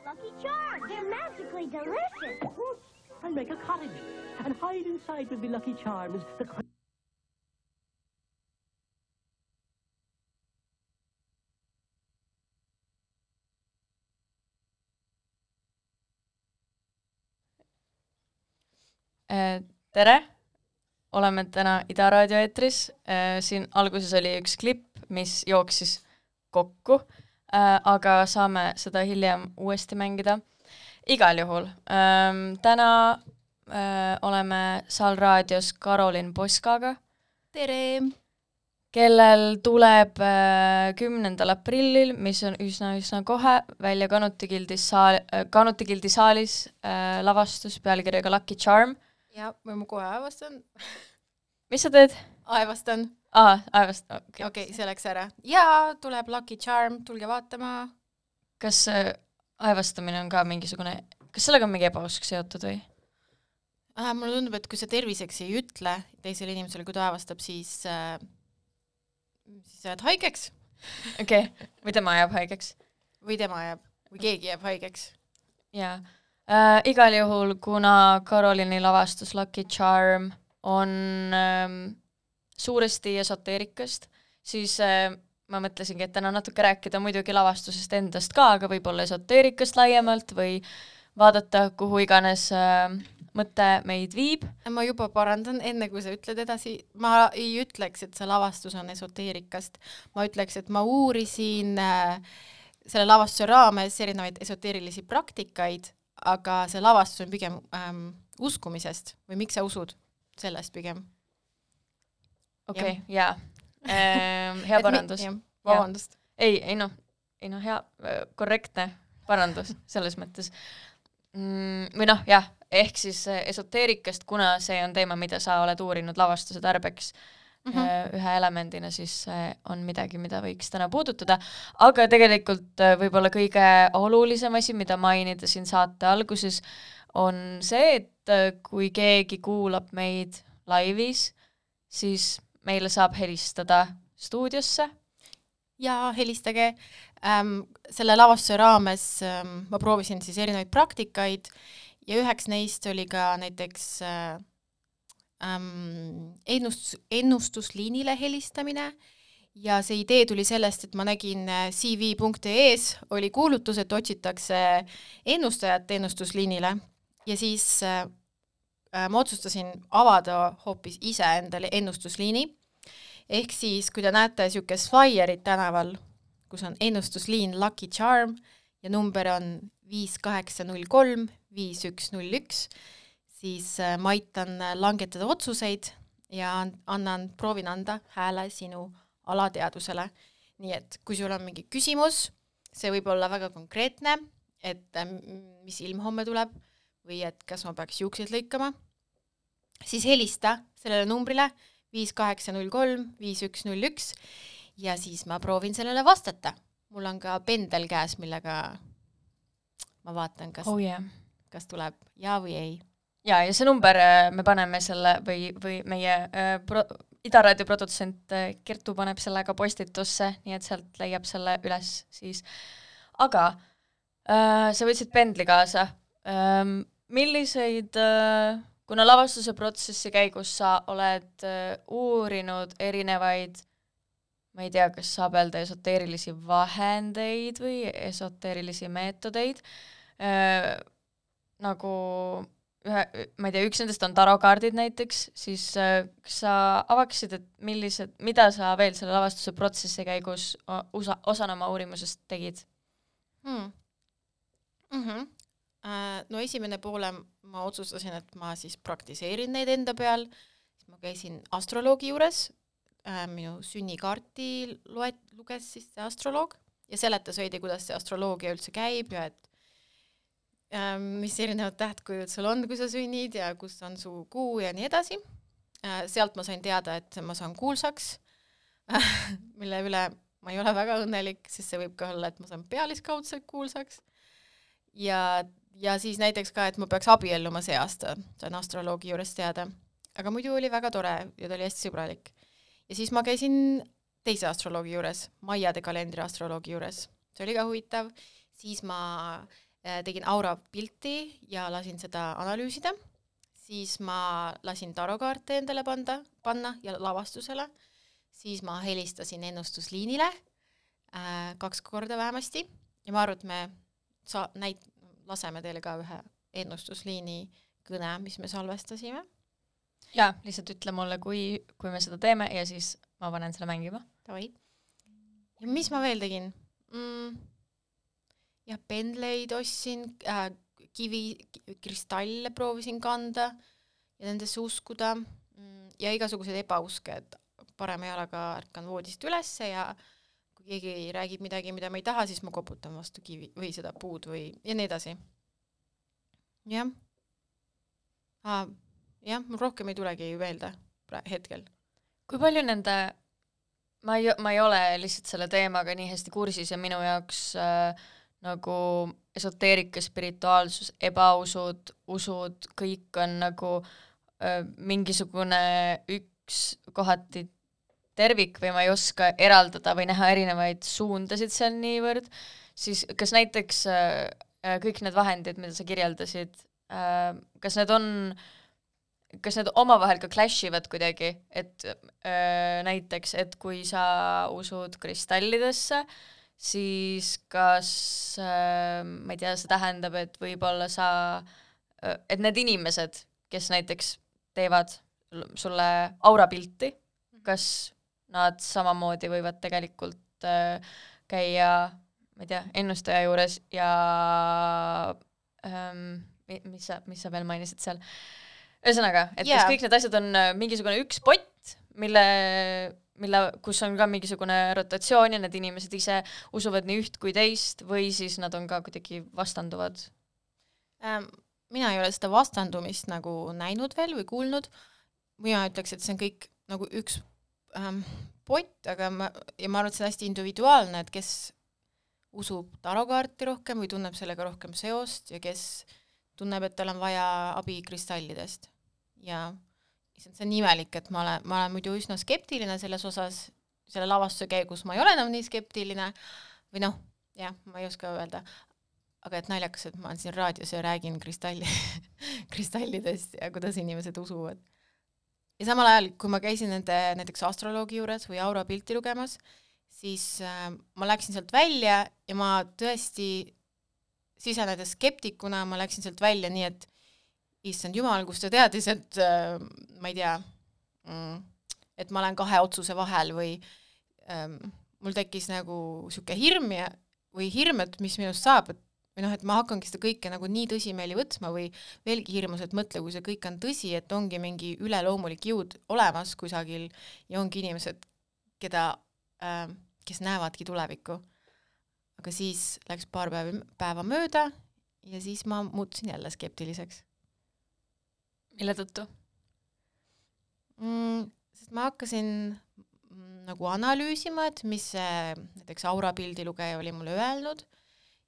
Lucky Charms. They're magically delicious. Of course, I'll make a cottage and hide inside with the Lucky Charms. Tere! Oleme täna Ida Raadio eetris. Siin alguses oli üks klipp, mis jooksis kokku, aga saame seda hiljem uuesti mängida. Igal juhul. Täna oleme Saal Raadios Karolin Poskaga. Tere! Kellel tuleb 10. aprillil, mis on üsna kohe, välja Kanuti Gildi saalis lavastus pealkirjaga Lucky Charm. Ja, või ma kohe aevastan. Mis sa teed? Aevastan. Aevastan, okei. Okei, see läks ära. Ja, tuleb Lucky Charm, tulge vaatama. Kas aevastamine on ka mingisugune, kas sellega on mingi ebausk seotud või? Mulle tundub, et kui sa terviseks ei ütle teisele inimesele, kui ta aevastab, siis jääd haigeks. Okei, või tema jääb haigeks. Või tema jääb, või keegi jääb haigeks. Jaa. Igal juhul, kuna Karolini lavastus Lucky Charm on suuresti esoteerikast, siis ma mõtlesingi, et täna natuke rääkida muidugi lavastusest endast ka, aga võib-olla esoteerikast laiemalt või vaadata, kuhu iganes mõte meid viib. Ma juba parandan, enne kui sa ütled edasi, ma ei ütleks, et see lavastus on esoteerikast. Ma ütleks, et ma uurisin selle lavastuse raames erinevaid esoteerilisi praktikaid, aga see lavastus on pigem uskumisest või miks sa usud sellest pigem? Okei, jaa. Hea parandus. Vabandust. Ei, hea, korrektne parandus selles mõttes. Või jah, ehk siis esoteerikast, kuna see on teema, mida sa oled uurinud lavastuse tarbeks ühe elemendina, siis on midagi, mida võiks täna puudutada. Aga tegelikult võib-olla kõige olulisem asi, mida mainida siin saate alguses, on see, et kui keegi kuulab meid laivis, siis meile saab helistada stuudiosse. Ja helistage. Selle lavastuse raames ma proovisin siis erinevaid praktikaid ja üheks neist oli ka näiteks ennustusliinile helistamine ja see idee tuli sellest, et ma nägin cv.ee-s oli kuulutus, et otsitakse ennustajat ennustusliinile ja siis ma otsustasin avada hoopis ise endale ennustusliini. Ehk siis, kui te näete niisugust flyerit tänaval, kus on ennustusliin Lucky Charm ja number on 5803 5101, siis ma aitan langetada otsuseid ja proovin anda hääle sinu alateadusele. Nii et kui sul on mingi küsimus, see võib olla väga konkreetne, et mis ilm homme tuleb või et kas ma peaks juukseid lõikama, siis helista sellele numbrile 5803 5101 ja siis ma proovin sellele vastata. Mul on ka pendel käes, millega ma vaatan, kas tuleb ja või ei. Ja see number me paneme selle või meie Ida Raadio produtsent Kertu paneb selle ka postitusse, nii et sealt leiab selle üles siis. Aga sa võtsid pendli kaasa. Milliseid, kuna lavastuse protsessi käigus sa oled uurinud erinevaid, ma ei tea, kas saab öelda esoteerilisi vahendeid või esoteerilisi meetodeid, nagu ma ei tea, üks nendest on tarokaardid näiteks, siis kas sa avaksid, et mida sa veel selle lavastuse protsessi käigus osana oma uurimusest tegid? No esimene poole ma otsustasin, et ma siis praktiseerin neid enda peal, siis ma käisin astroloogi juures, minu sünnikaarti luges siis see astroloog ja seletas veidi, kuidas see astroloogia üldse käib ja et mis erinevad tähtkujud sul on, kui sa sünnid ja kus on su kuu ja nii edasi. Sealt ma sain teada, et ma saan kuulsaks, mille üle ma ei ole väga õnnelik, sest see võib ka olla, et ma saan pealiskaudselt kuulsaks. Ja siis näiteks ka, et ma peaks abielluma see aasta, sain astroloogi juures teada. Aga muidu oli väga tore ja ta oli hästi sõbralik. Ja siis ma käisin teise astroloogi juures, Maiade kalendri astroloogi juures. See oli ka huvitav. Siis ma tegin aura pilti ja lasin seda analüüsida, siis ma lasin tarokaarte endale panna ja lavastusele, siis ma helistasin ennustusliinile 2 korda vähemasti ja ma arvan, et me laseme teile ka ühe ennustusliini kõne, mis me salvestasime. Jaa, lihtsalt ütle mulle, kui me seda teeme ja siis ma panen selle mängima. Davai. Ja mis ma veel tegin? Ja pendleid ostsin, kristalle proovisin kanda ja nendesse uskuda ja igasugused ebauske, et parema jalaga ärkan voodist ülesse ja kui keegi räägib midagi, mida ma ei taha, siis ma koputan vastu kivi või seda puud või ja nii edasi. Jah. Jah, mul rohkem ei tulegi meelde hetkel. Kui palju nende, ma ei ole lihtsalt selle teemaga nii hästi kursis ja minu jaoks nagu esoteerika, spirituaalsus, ebausud, usud, kõik on nagu mingisugune üks kohati tervik või ma ei oska eraldada või näha erinevaid suundasid seal niivõrd, siis kas näiteks kõik need vahendid, mida sa kirjeldasid, kas need omavahel ka clashivad kuidagi, et näiteks, et kui sa usud kristallidesse, siis kas, ma ei tea, see tähendab, et võib-olla et need inimesed, kes näiteks teevad sulle aurapilti, kas nad samamoodi võivad tegelikult käia, ma ei tea, ennustaja juures ja mis sa veel mainisid seal? Ühesõnaga, et kas kõik need asjad on mingisugune üks pott, kus on ka mingisugune rotatsioon ja need inimesed ise usuvad nii üht kui teist või siis nad on ka kuidagi vastanduvad? Mina ei ole seda vastandumist nagu näinud veel või kuulnud. Mina ütleks, et see on kõik nagu üks pott, aga ma arvan, et see on hästi individuaalne, et kes usub tarokaarti rohkem või tunneb sellega rohkem seost ja kes tunneb, et tal on vaja abi kristallidest. Ja see on imelik, et ma olen muidu üsna skeptiline selles osas, selle lavastuse käigus ma ei ole enam nii skeptiline või noh, jah, ma ei oska öelda, aga et naljakas, et ma olen siin raadios ja räägin kristallidest ja kuidas inimesed usuvad. Ja samal ajal, kui ma käisin nende näiteks astroloogi juures või aura pilti lugemas, siis ma läksin sealt välja ja ma tõesti sisenedes skeptikuna ma läksin sealt välja nii, et issand jumal, kus ta teadis, et ma ei tea, et ma olen 2 otsuse vahel või mul tekkis nagu siuke hirm või hirm, et mis minust saab, või noh, et ma hakkangi seda kõike nagu nii tõsimeeli võtsma või veelgi hirmus, et mõtle, kui see kõik on tõsi, et ongi mingi üleloomulik jõud olemas kusagil ja ongi inimesed, kes näevadki tulevikku. Aga siis läks paar päeva mööda ja siis ma muutusin jälle skeptiliseks. Mille tõttu? Sest ma hakkasin nagu analüüsima, et mis näiteks aurapildi lugeja oli mulle öelnud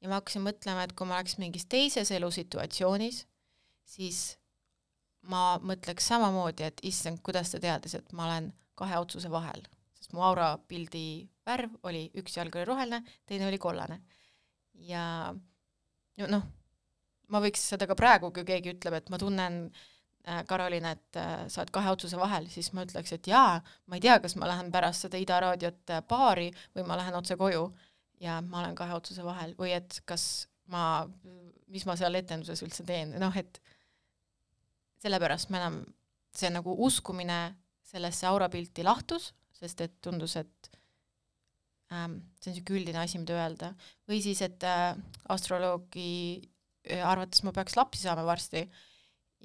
ja ma hakkasin mõtlema, et kui ma oleks mingis teises elusituatsioonis, siis ma mõtleks samamoodi, et issand, kuidas ta teadis, et ma olen 2 otsuse vahel. Sest mu aurapildi värv oli, üks jalg oli roheline, teine oli kollane. Ja noh, ma võiks seda ka praegu, kui keegi ütleb, et ma tunnen, Karoliina, et sa oled 2 otsuse vahel, siis ma ütleks, et jaa, ma ei tea, kas ma lähen pärast seda Ida raadiot baari või ma lähen otse koju ja ma olen 2 otsuse vahel või et mis ma seal etenduses üldse teen. Noh, et sellepärast ma enam, see nagu uskumine sellesse aurapilti lahtus, sest et tundus, et see on siuke üldine asi, mida öelda. Või siis, et astroloogi arvates ma peaks lapsi saama varsti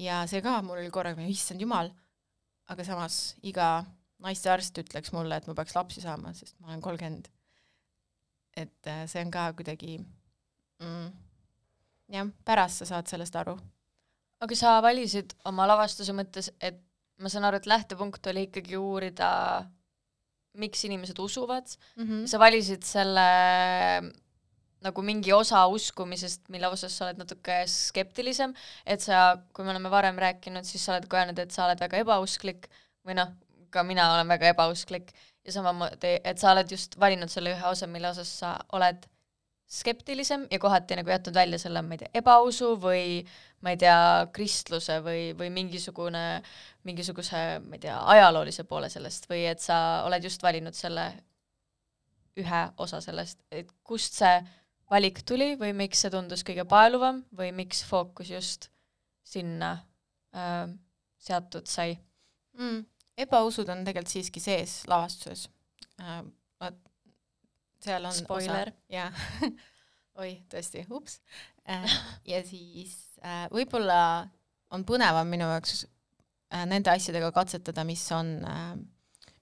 ja see ka mul oli korraga, issand jumal, aga samas iga naistearst ütleks mulle, et ma peaks lapsi saama, sest ma olen 30. Et see on ka kuidagi jah, pärast sa saad sellest aru. Aga sa valisid oma lavastuse mõttes, et ma saan aru, et lähtepunkt oli ikkagi uurida, miks inimesed usuvad. Sa valisid selle nagu mingi osa uskumisest, mille osas sa oled natuke skeptilisem, et sa, kui me oleme varem rääkinud, siis sa oled ka öelnud, et sa oled väga ebausklik või noh, ka mina olen väga ebausklik ja samamoodi, et sa oled just valinud selle ühe osa, mille osas sa oled skeptilisem ja kohati nagu jätnud välja selle, ma ei tea, ebausu või ma ei tea, kristluse või mingisuguse, ma ei tea, ajaloolise poole sellest või et sa oled just valinud selle ühe osa sellest, et kust see valik tuli või miks see tundus kõige paeluvam või miks fookus just sinna seatud sai? Ebausud on tegelikult siiski sees lavastuses. Seal on spoiler. Jah. Oi, tõesti, ups. Ja siis võib-olla on põnevam minu jaoks nende asjadega katsetada, mis on,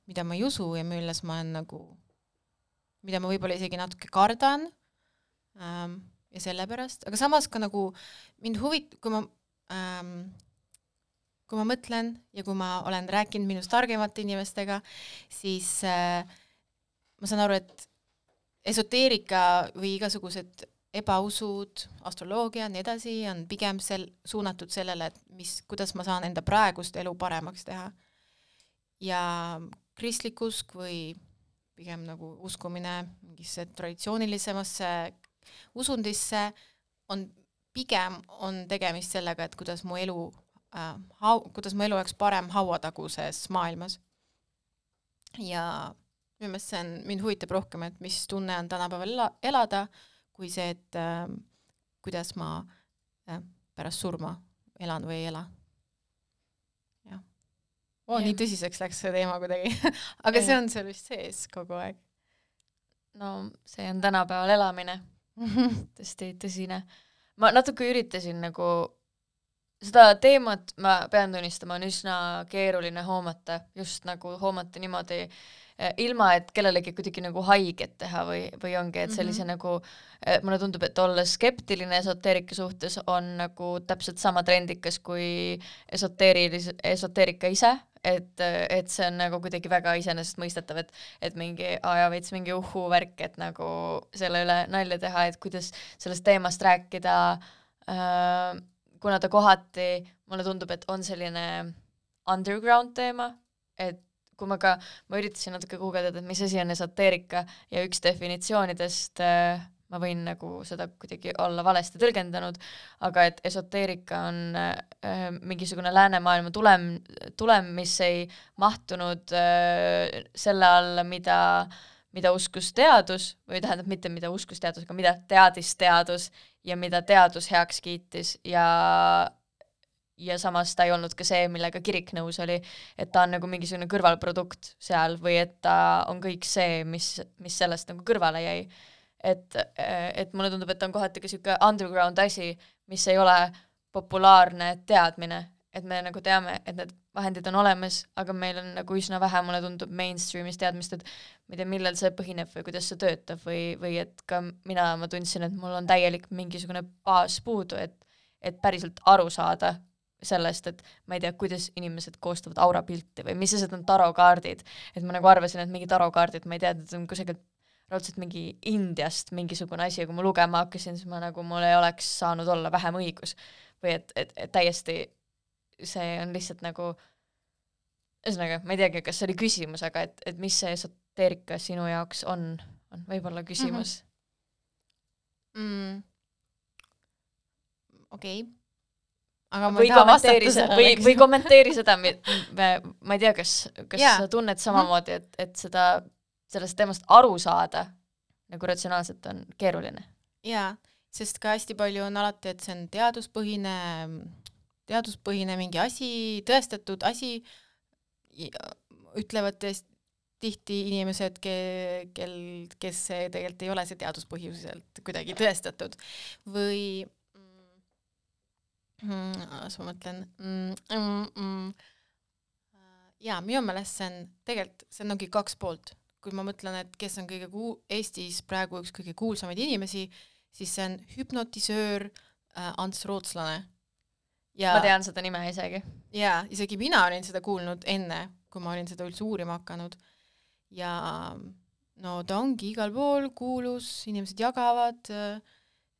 mida ma ei usu ja milles ma olen nagu, mida ma võib-olla isegi natuke kardan ja sellepärast, aga samas ka nagu mind kui ma mõtlen ja kui ma olen rääkinud minust targemate inimestega, siis ma saan aru, et esoteerika või igasugused ebausud, astroloogia ja nii edasi on pigem suunatud sellele, et kuidas ma saan enda praegust elu paremaks teha. Ja kristlik usk või pigem nagu uskumine mingisse traditsioonilisemasse usundisse on tegemist sellega, et kuidas mu elu oleks parem hauataguses maailmas. Ja minu meelest mind huvitab rohkem, et mis tunne on tänapäeval elada, kui see, et kuidas ma pärast surma elan või ei ela. Nii tõsiseks läks see teema kuidagi, aga see on seal vist sees kogu aeg. No see on tänapäeval elamine, tõesti tõsine. Ma natuke üritasin nagu seda teemat, ma pean tunnistama, on üsna keeruline hoomata, just nagu hoomata niimoodi, ilma et kellelegi kuidagi nagu haiget teha või ongi, et sellise nagu, mulle tundub, et olla skeptiline esoteerika suhtes on nagu täpselt sama trendikas kui esoteerika ise, et see on nagu kuidagi väga iseenesestmõistetav, et mingi veits mingi värk, et nagu selle üle nalja teha, et kuidas sellest teemast rääkida, kuna ta kohati, mulle tundub, et on selline underground teema, et kui ma üritasin natuke guugeldada, et mis asi on esoteerika ja üks definitsioonidest, ma võin nagu seda kuidagi olla valesti tõlgendanud, aga et esoteerika on mingisugune läänemaailma tulem, mis ei mahtunud selle alla, mida uskus teadus, või tähendab mitte mida uskus teadus, aga mida teadis teadus ja mida teadus heaks kiitis ja samas ta ei olnud ka see, millega kirik nõus oli, et ta on nagu mingisugune kõrvalprodukt seal või et ta on kõik see, mis sellest nagu kõrvale jäi. Et mulle tundub, et ta on kohati ka siuke underground asi, mis ei ole populaarne teadmine, et me nagu teame, et need vahendid on olemas, aga meil on nagu üsna vähe, mulle tundub mainstreamis teadmist, et ma ei tea, millel see põhineb või kuidas see töötab või et ka ma tundsin, et mul on täielik mingisugune baas puudu, et päriselt aru saada sellest, et ma ei tea, kuidas inimesed koostavad aurapilti või mis asjad on tarokaardid, et ma nagu arvasin, et mingi tarokaardid, ma ei tea, et on kusagilt raudselt mingi Indiast mingisugune asi, kui ma lugema hakkasin, siis mul ei oleks saanud olla vähem õigus või et täiesti see on lihtsalt nagu ühesõnaga, ma ei teagi, kas see oli küsimus, aga et mis see esoteerika sinu jaoks on võib-olla küsimus. Okei. Või kommenteeri seda, ma ei tea, kas sa tunned samamoodi, et sellest teemast aru saada nagu ratsionaalselt on keeruline. Jaa, sest ka hästi palju on alati, et see on teaduspõhine mingi asi, tõestatud asi, ütlevad tihti inimesed, kes tegelikult ei ole see teaduspõhiselt kuidagi tõestatud. Või ma mõtlen minu meelest see ongi kaks poolt. Kui ma mõtlen, et kes on Eestis praegu üks kõige kuulsamaid inimesi, siis see on hüpnotisöör Ants Rootslane. Ma tean seda nime isegi. Jaa, isegi mina olin seda kuulnud enne, kui ma olin seda üldse uurima hakanud. Ja no ta ongi igal pool kuulus, inimesed jagavad,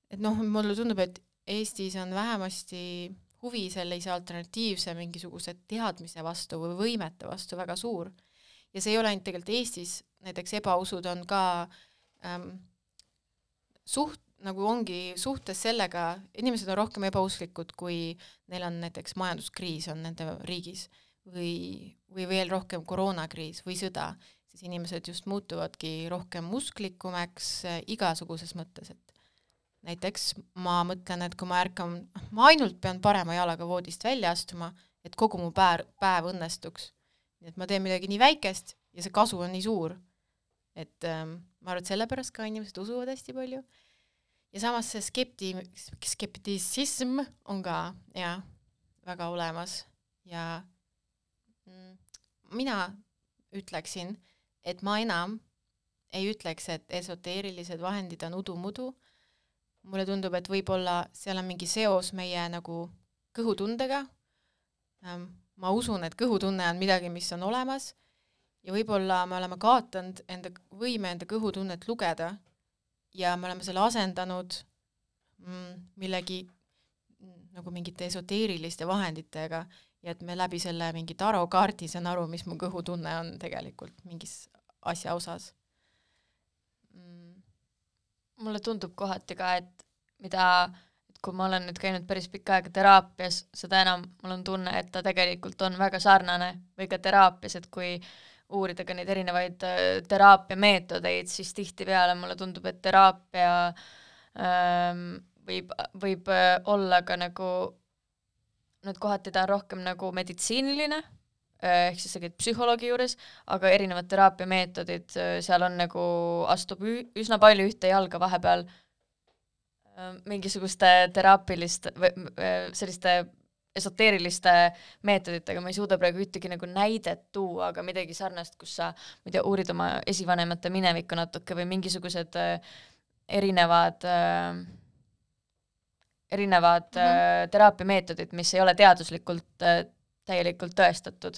et mulle tundub, et Eestis on vähemasti huvi sellise alternatiivse mingisuguse teadmise vastu või võimete vastu väga suur. Ja see ei ole ainult tegelikult Eestis, näiteks ebausud on ka nagu ongi suhtes sellega, inimesed on rohkem ebausklikud, kui neil on näiteks majanduskriis on nende riigis või veel rohkem koroonakriis või sõda, siis inimesed just muutuvadki rohkem usklikumaks igasuguses mõttes, et näiteks ma mõtlen, et kui ma ärkan, ma ainult pean parema jalaga voodist välja astuma, et kogu mu päev õnnestuks. Nii et ma teen midagi nii väikest ja see kasu on nii suur. Et ma arvan, et sellepärast ka inimesed usuvad hästi palju. Ja samas see skeptisism on ka väga olemas. Ja mina ütleksin, et ma enam ei ütleks, et esoteerilised vahendid on udumudu. Mulle tundub, et võib-olla seal on mingi seos meie nagu kõhutundega. Ma usun, et kõhutunne on midagi, mis on olemas ja võib-olla me oleme kaotanud enda kõhutunnet lugeda ja me oleme selle asendanud millegi nagu mingite esoteeriliste vahenditega ja et me läbi selle mingi tarokaardi saan aru, mis mu kõhutunne on tegelikult mingis asja osas. Mulle tundub kohati ka, et kui ma olen nüüd käinud päris pikka aega teraapias, seda enam mul on tunne, et ta tegelikult on väga sarnane või ka teraapias, et kui uurida ka neid erinevaid teraapia meetodeid, siis tihtipeale mulle tundub, et teraapia võib olla ka nagu, nüüd kohati ta on rohkem nagu meditsiiniline, ehk siis sa käid psühholoogi juures, aga erinevad teraapia meetodid, seal on nagu astub üsna palju ühte jalga vahepeal mingisuguste teraapiliste selliste esoteeriliste meetoditega, ma ei suuda praegu ühtegi nagu näidet tuua, aga midagi sarnast, kus sa uurid oma esivanemate minevikku natuke või mingisugused erinevad teraapiameetodid, mis ei ole teaduslikult täielikult tõestatud.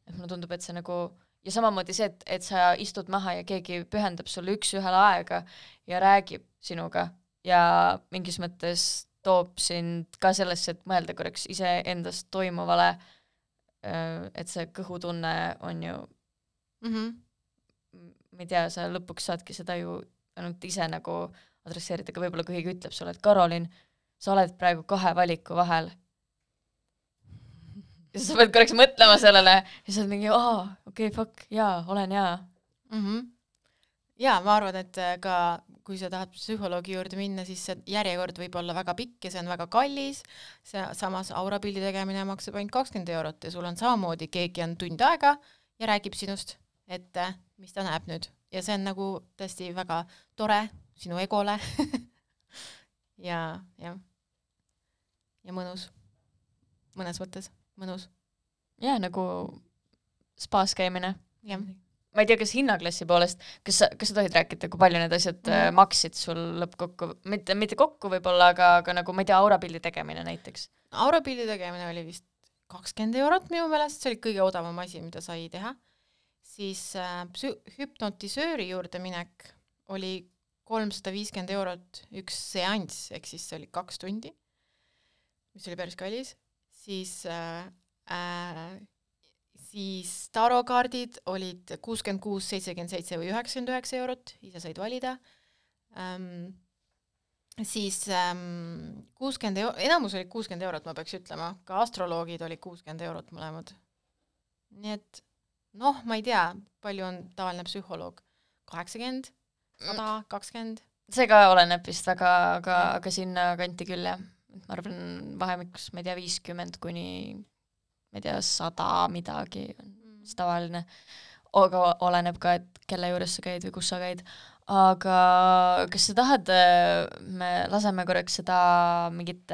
Et mulle tundub, et see nagu ja samamoodi see, et sa istud maha ja keegi pühendab sulle üks-ühele aega ja räägib sinuga ja mingis mõttes toob sind ka sellesse, et mõelda korraks ise endast toimuvale, et see kõhutunne on ju ma ei tea, sa lõpuks saadki seda ju ainult ise nagu adresseerida, aga võib-olla kui keegi ütleb sulle, et Karolin, sa oled praegu 2 valiku vahel ja sa pead korraks mõtlema sellele ja sa oled mingi, okei, fuck, olen Ja ma arvan, et ka kui sa tahad psühholoogi juurde minna, siis see järjekord võib olla väga pikk ja see on väga kallis, samas aurapildi tegemine maksab ainult 20 € ja sul on samamoodi, keegi on tund aega ja räägib sinust, et mis ta näeb nüüd. Ja see on nagu tõesti väga tore sinu egole ja mõnus. Mõnes mõttes mõnus. Ja nagu spaas käimine. Jah. Ma ei tea, kas hinnaklassi poolest, kas sa tohid rääkida, kui palju need asjad maksid sul lõppkokku, mitte kokku võib-olla, aga nagu, ma ei tea, aurapildi tegemine näiteks? Aurapildi tegemine oli vist 20 € minu meelest, see oli kõige odavam asi, mida sai teha. Siis hüpnotisööri juurde minek oli 350 € üks seanss, ehk siis see oli 2 tundi, mis oli päris kallis. Siis tarokaardid olid 66, 77 või 99 €, ise said valida. Siis 60 enamus oli 60 €, ma peaks ütlema, ka astroloogid oli 60 € mõlemad. Nii et ma ei tea, palju on tavaline psühholoog, 80, 100, 20? See ka oleneb vist väga, aga sinna kanti küll, jah. Ma arvan vahemikus, ma ei tea, 50 kuni ma ei tea, 100 midagi on tavaline, aga oleneb ka, et kelle juures sa käid või kus sa käid. Aga kas sa tahad, me laseme korraks seda mingit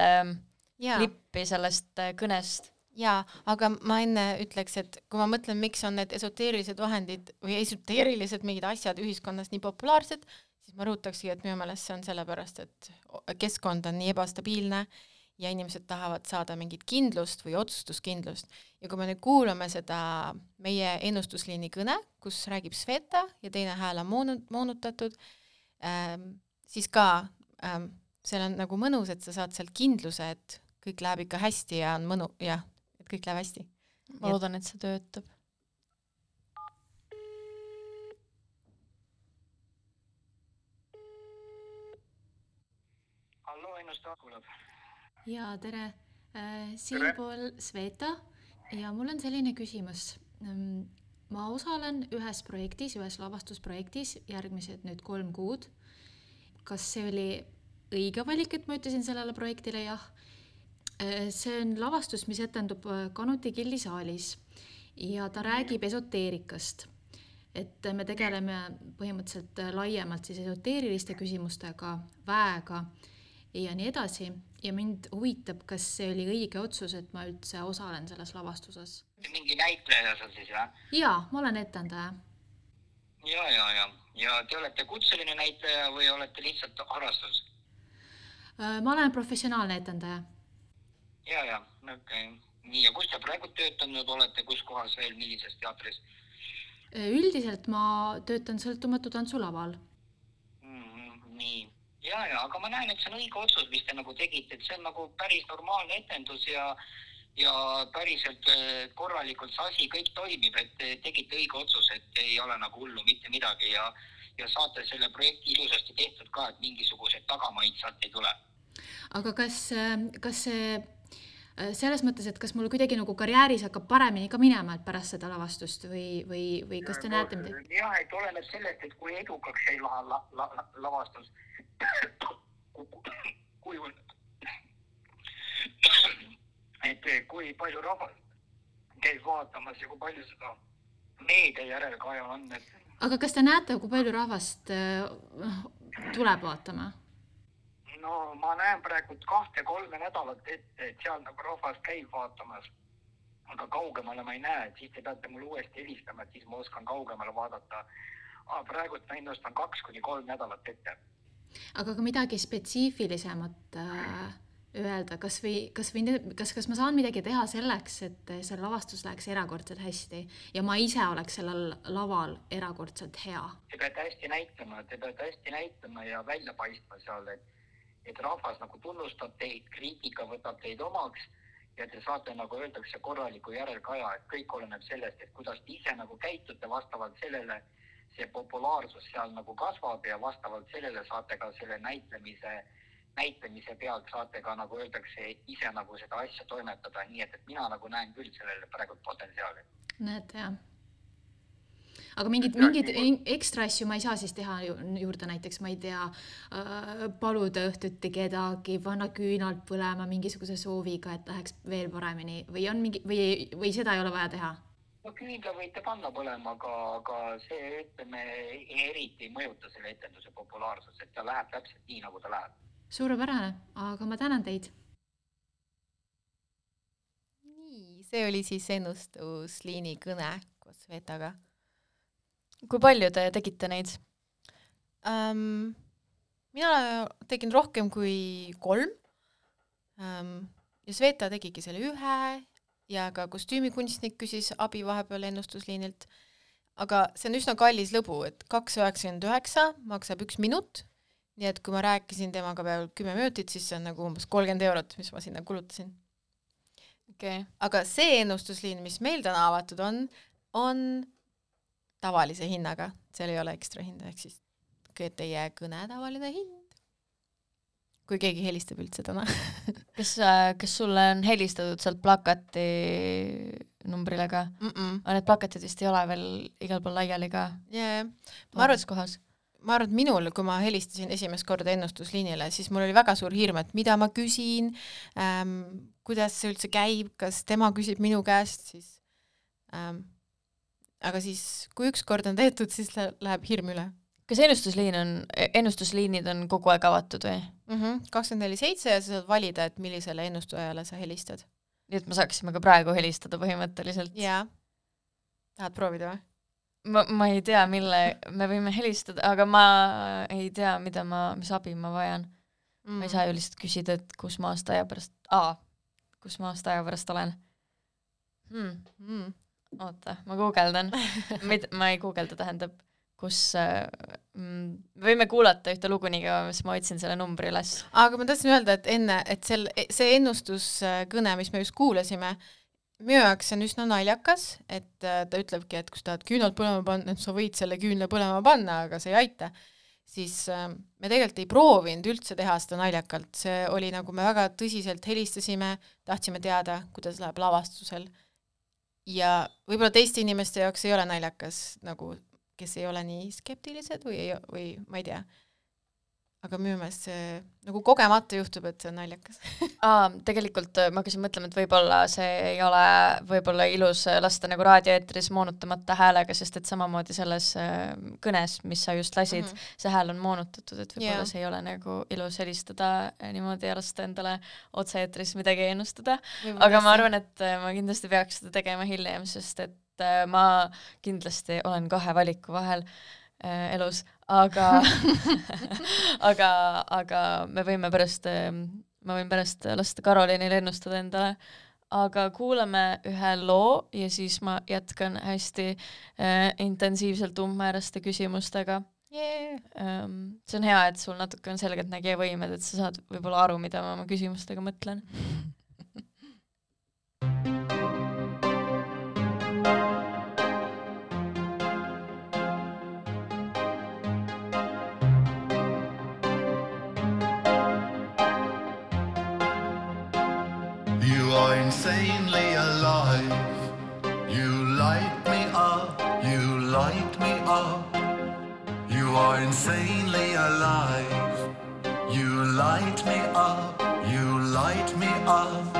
klippi sellest kõnest? Jaa, aga ma enne ütleks, et kui ma mõtlen, miks on need esoteerilised vahendid või esoteerilised mingid asjad ühiskonnas nii populaarsed, siis ma rõhutakski, et minu meelest see on sellepärast, et keskkond on nii ebastabiilne ja inimesed tahavad saada mingit kindlust või otsustuskindlust. Ja kui me nüüd kuulame seda meie ennustusliini kõne, kus räägib Sveta ja teine hääl on moonutatud, siis ka seal on nagu mõnus, et sa saad sealt kindluse, et kõik läheb ikka hästi ja on mõnu, et kõik läheb hästi. Ma loodan, et see töötab. Hallo, ennustajad kuulab. ja tere, siinpool Sveta ja mul on selline küsimus. Ma osalen ühes projektis, ühes lavastusprojektis järgmised nüüd 3 kuud. Kas see oli õige valik, et ma ütlesin sellele projektile jah? See on lavastus, mis etendub Kanuti gildisaalis ja ta räägib esoteerikast. Et me tegeleme põhimõtteliselt laiemalt siis esoteeriliste küsimustega, väega ja nii edasi. Ja mind huvitab, kas see oli õige otsus, et ma üldse osalen selles lavastuses. Mingi näitleja seal siis, jah? Jaa, ma olen etendaja. Ja te olete kutseline näitleja või olete lihtsalt harrastus? Ma olen professionaalne etendaja. Ja, okei. Nii, ja kus te praegu töötanud olete, kus kohas veel, millises teatris? Üldiselt ma töötan sõltumatu tantsulaval. Nii, ja, aga ma näen, et see on õige otsus, mis te nagu tegite, et see on nagu päris normaalne etendus ja päriselt korralikult see asi kõik toimib, et te tegite õige otsus, et ei ole nagu hullu mitte midagi ja saate selle projekti ilusasti tehtud ka, et mingisugused tagamaid sealt ei tule. Aga kas see selles mõttes, et kas mul kuidagi nagu karjääris hakkab paremini ka minema, et pärast seda lavastust või kas te näete midagi? Jah, et oleneb sellest, et kui edukaks ei lavastus, et kui palju rahvas käib vaatamas ja kui palju seda meedia järelkaja on. Aga kas te näete, kui palju rahvast tuleb vaatama? No ma näen praegu 2-3 nädalat ette, et seal nagu rahvas käib vaatamas, aga kaugemale ma ei näe, et siis te peate mulle uuesti helistama, et siis ma oskan kaugemale vaadata. Praegu ma ennustan 2-3 nädalat ette. Aga ka midagi spetsiifilisemat öelda, kas ma saan midagi teha selleks, et see lavastus läheks erakordselt hästi ja ma ise oleks sellel laval erakordselt hea? Te peate hästi näitama ja välja paistma seal, et rahvas nagu tunnustab teid, kriitika võtab teid omaks ja te saate nagu öeldakse korraliku järelkaja, et kõik oleneb sellest, et kuidas te ise nagu käitute, vastavalt sellele see populaarsus seal nagu kasvab ja vastavalt sellele saate ka selle näitlemise pealt saate ka nagu öeldakse ise nagu seda asja toimetada, nii et mina nagu näen küll sellele praegu potentsiaali. Näed, jah. Aga mingid ekstra asju ma ei saa siis teha juurde, näiteks ma ei tea, paluda õhtuti kedagi, panna küünalt põlema mingisuguse sooviga, et läheks veel paremini või seda ei ole vaja teha? No küünla võite panna põlema, aga see ütleme eriti ei mõjuta selle etenduse populaarsus, et ta läheb täpselt nii, nagu ta läheb. Suurepärane, aga ma tänan teid. Nii, see oli siis ennustusliini kõne koos Svetaga. Kui palju te tegite neid? Mina tegin rohkem kui 3 ja Sveta tegigi selle 1 ja ka kostüümikunstnik küsis abi vahepeal ennustusliinilt, aga see on üsna kallis lõbu, et 2,99 maksab 1 minut, nii et kui ma rääkisin temaga peal 10 minutit, siis see on nagu umbes 30 €, mis ma sinna kulutasin. Okay. Aga see ennustusliin, mis meil täna avatud on tavalise hinnaga, seal ei ole ekstra hinda, ehk siis teie kõne tavaline hind. Kui keegi helistab üldse täna. Kas sulle on helistatud sealt plakati numbrile ka? Aga need plakatid vist ei ole veel igal pool laiali ka? Yeah. Ma arvan, et minul, kui ma helistasin esimest korda ennustusliinile, siis mul oli väga suur hirm, et mida ma küsin, kuidas see üldse käib, kas tema küsib minu käest, siis aga siis, kui üks kord on tehtud, siis läheb hirm üle. Kas ennustusliinid on kogu aeg avatud või? 24/7 ja sa saad valida, et millisele ennustajale sa helistad. Nii et me saaksime ka praegu helistada põhimõtteliselt? Jaa. Tahad proovida või? Ma ei tea, mille me võime helistada, aga ma ei tea, mis abi ma vajan. Ma ei saa ju lihtsalt küsida, et kus ma aasta aja pärast olen. Oota, ma guugeldan. Ma ei guugelda, tähendab, kus võime kuulata ühte lugu nii kaua, mis ma otsin selle numbri üles. Aga ma tahtsin öelda, et enne, et see ennustuskõne, mis me just kuulasime, minu jaoks on üsna naljakas, et ta ütlebki, et kus tahad küünalt põlema panna, et sa võid selle küünla põlema panna, aga see ei aita. siis me tegelikult ei proovinud üldse teha seda naljakalt, see oli nagu me väga tõsiselt helistasime, tahtsime teada, kuidas läheb lavastusel ja võib-olla teiste inimeste jaoks ei ole naljakas, nagu kes ei ole nii skeptilised või ma ei tea. Aga minu meelest see nagu kogemata juhtub, et see on naljakas. Tegelikult ma hakkasin mõtlema, et võib-olla see ei ole võib-olla ilus lasta nagu raadioeetris moonutamata häälega, sest et samamoodi selles kõnes, mis sa just lasid, see hääl on moonutatud, et võib-olla see ei ole nagu ilus helistada niimoodi ja lasta endale otse-eetris midagi ennustada. Aga ma arvan, et ma kindlasti peaks seda tegema hiljem, sest et ma kindlasti olen 2 valiku vahel elus, aga aga ma võin pärast lasta Karolinile ennustada endale, aga kuulame ühe loo ja siis ma jätkan hästi intensiivselt umbmääraste küsimustega. See on hea, et sul natuke on selgeltnägija võimed, et sa saad võib-olla aru, mida ma oma küsimustega mõtlen. Insanely alive, you light me up, you light me up. You are insanely alive, you light me up, you light me up.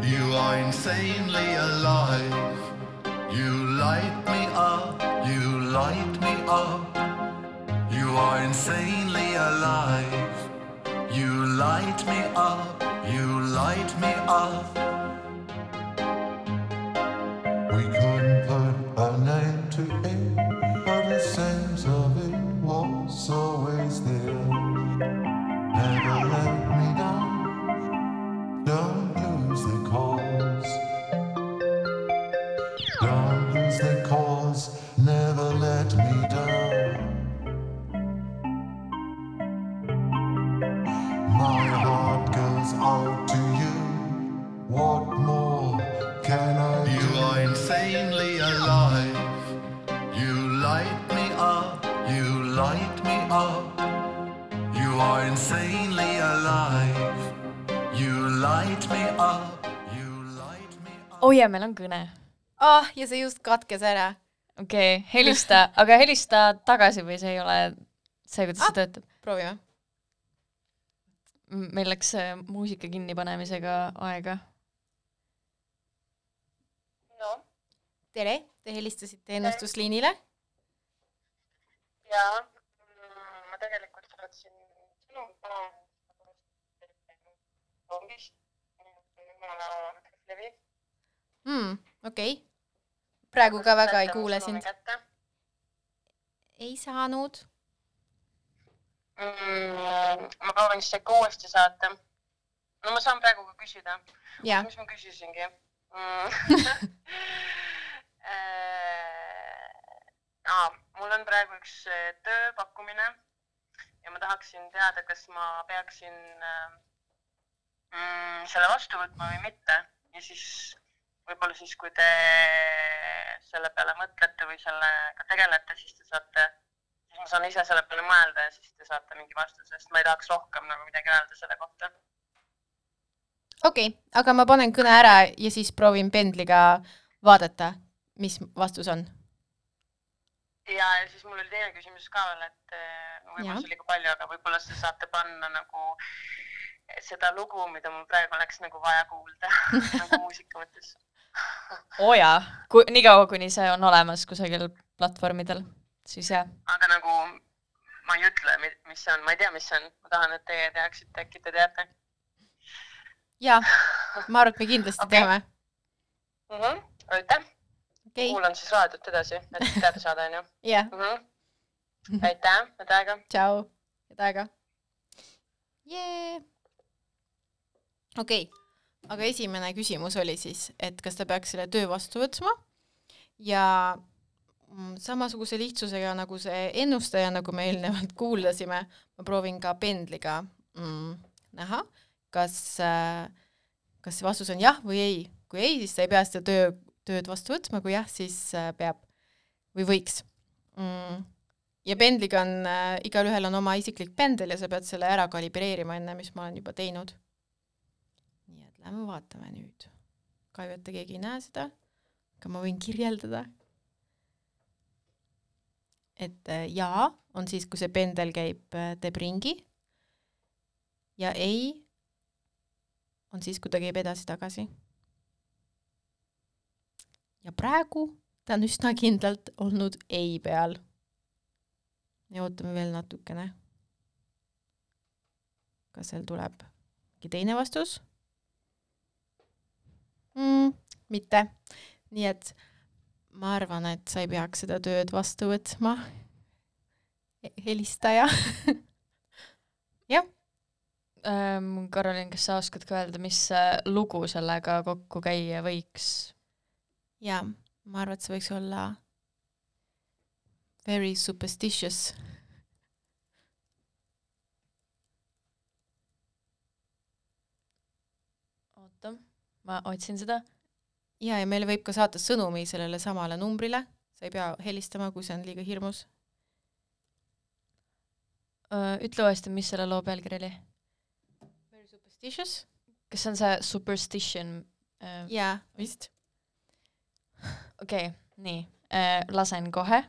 You are insanely alive, you light me up, you light me up. You are insanely alive, you light me up, you light me up. We couldn't put a name to it, but the sense of it was always there. Never let me down, don't lose the cause. Don't lose the cause, never let me down. My heart goes out to you, what more can I do? You are insanely alive, you light me up, you light me up. You are insanely alive, you light me up, you light me up. Oh ja, meil on kõne. Ja see just katkes ära. Okei, helista, aga helista tagasi või see ei ole see, kuidas see töötab? Proovime. Meil läks muusika kinnipanemisega aega. No. Tere, te helistasite ennustusliinile? Jaa, ma tegelikult saatsin sõnum Okei. Praegu ka väga ei kuule sind. Ei saanud. Ma proovin siis ikka uuesti saata. No ma saan praegu ka küsida. Mis ma küsisingi? Mul on praegu üks tööpakkumine ja ma tahaksin teada, kas ma peaksin selle vastu võtma või mitte. Ja siis võib-olla siis, kui te selle peale mõtlete või sellega tegelete, siis te saate, siis ma saan ise selle peale mõelda ja siis te saate mingi vastuse, sest ma ei tahaks rohkem nagu midagi öelda selle kohta. Okei, aga ma panen kõne ära ja siis proovin pendliga vaadata, mis vastus on. Ja siis mul oli teine küsimus ka veel, et võib-olla see oli ka palju, aga võib-olla te saate panna nagu seda lugu, mida mul praegu oleks nagu vaja kuulda, nagu muusika mõttes. Jaa, nii kaua, kuni see on olemas kusagil platvormidel, siis jah. Aga nagu ma ei ütle, mis see on, ma ei tea, mis see on. Ma tahan, et teie teaksite, äkki te teate. Jaa, ma arvan, et me kindlasti teame. Aitäh. Kuulan siis raadiot edasi, et teada saada, on ju? Jah. Aitäh, head aega. Tšau, head aega. Okei, aga esimene küsimus oli siis, et kas ta peaks selle töö vastu võtma ja samasuguse lihtsusega nagu see ennustaja, nagu me eelnevalt kuulasime, ma proovin ka pendliga näha, kas see vastus on jah või ei. Kui ei, siis ta ei pea seda tööd vastu võtma, kui jah, siis peab või võiks. ja pendliga on, igalühel on oma isiklik pendel ja sa pead selle ära kalibreerima enne, mis ma olen juba teinud. Nii et lähme vaatame nüüd. Kahju, et keegi ei näe seda, aga ma võin kirjeldada. Et jaa on siis, kui see pendel käib, teeb ringi ja ei on siis, kui ta käib edasi-tagasi. Ja praegu ta on üsna kindlalt olnud ei peal. Ja ootame veel natukene. Kas seal tuleb teine vastus? Mitte. Nii et ma arvan, et sa ei peaks seda tööd vastu võtma. Helistaja. Jah. Karolin, kas sa oskad ka öelda, mis lugu sellega kokku käia võiks? Ja, ma arvan, et see võiks olla very superstitious. Oota, ma otsin seda. Ja meile võib ka saata sõnumi sellele samale numbrile. Sa ei pea helistama, kui see on liiga hirmus. Ütle uuesti, mis selle loo pealkiri oli? Very superstitious? Kas see on see superstition? Jaa, vist. Okei, nii. Lasen kohe.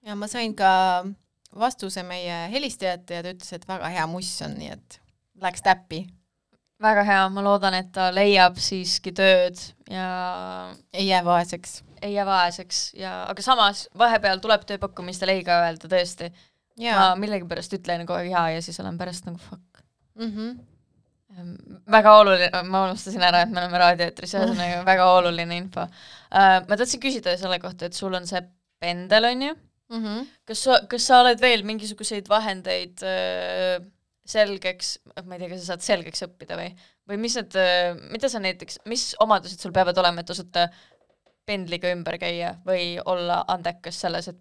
Ja ma sain ka vastuse meie helistajate ja ta ütles, et väga hea muss on, nii et läks täppi. Väga hea, ma loodan, et ta leiab siiski tööd ja ei jää vaeseks. Ei jää vaeseks, aga samas vahepeal tuleb tööpakkumistel ei ka öelda tõesti. Ja. Ma millegi pärast ütlen kogu hea ja siis olen pärast nagu fuck. Mm-hmm. Väga oluline, ma unustasin ära, et me oleme raadioetris ja see on väga oluline info. Ma tahtsin küsida selle kohta, et sul on see pendel, on ju? Mm-hmm. Kas sa oled veel mingisuguseid vahendeid selgeks, ma ei tea, kas sa saad selgeks õppida või mis need, mida sa näiteks, mis omadused sul peavad olema, et osata pendliga ümber käia või olla andekas selles, et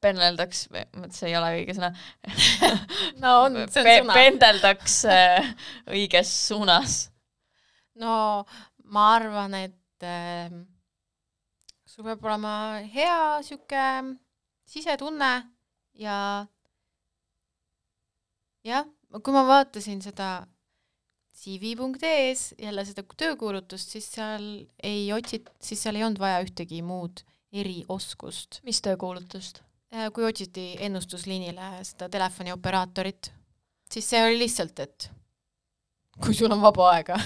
pendeldaks, see ei ole õige sõna. No on, see on sõna. Pendeldaks õiges suunas. No ma arvan, et sul peab olema hea siuke sisetunne ja kui ma vaatasin seda CV.ee-s jälle seda töökuulutust, siis seal ei olnud vaja ühtegi muud erioskust. Mis töökuulutust? Kui otsiti ennustusliinile seda telefonioperaatorit, siis see oli lihtsalt, et kui sul on vaba aega.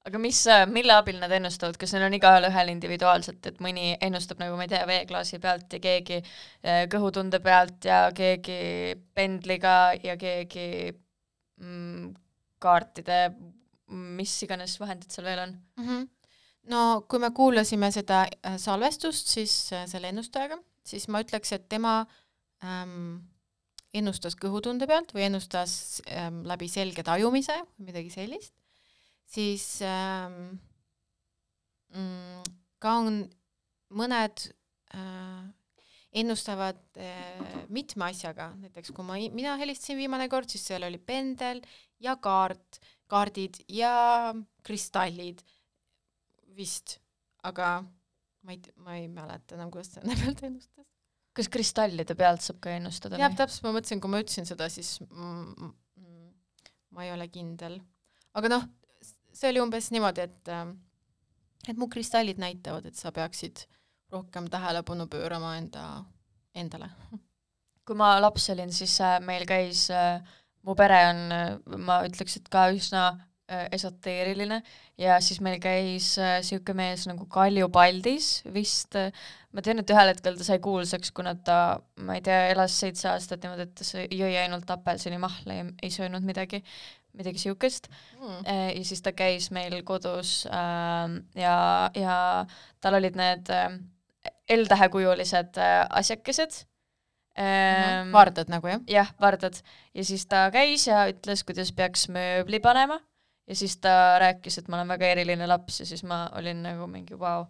Aga mille abil nad ennustavad? Kas neil on igaühel ühel individuaalselt, et mõni ennustab nagu, ma ei tea, veeklaasi pealt ja keegi kõhutunde pealt ja keegi pendliga ja keegi kaartide, mis iganes vahendid seal veel on? No kui me kuulasime seda salvestust siis selle ennustajaga, siis ma ütleks, et tema ennustas kõhutunde pealt või ennustas läbi selge tajumise või midagi sellist, siis ka on mõned ennustavad mitme asjaga, näiteks kui mina helistasin viimane kord, siis seal oli pendel ja kaardid ja kristallid vist, aga ma ei mäleta enam, kuidas selle pealt ennustas. Kas kristallide pealt saab ka ennustada? Jah, täpselt ma mõtlesin, kui ma ütlesin seda, siis ma ei ole kindel. Aga noh, see oli umbes niimoodi, et mu kristallid näitavad, et sa peaksid rohkem tähelepanu pöörama endale. Kui ma laps olin, siis meil käis, mu pere on, ma ütleks, et ka üsna esoteeriline ja siis meil käis siuke mees nagu Kalju Paldis vist, ma tean, et ühel hetkel ta sai kuulsaks, kuna ta, ma ei tea, elas 7 aastat niimoodi, et ta jõi ainult apelsini mahla ja ei söönud midagi siukest. Ja siis ta käis meil kodus ja tal olid need L-tähekujulised asjakesed. Vardad nagu, jah? Jah, vardad. Ja siis ta käis ja ütles, kuidas peaks mööbli panema. Ja siis ta rääkis, et ma olen väga eriline laps ja siis ma olin nagu mingi vau.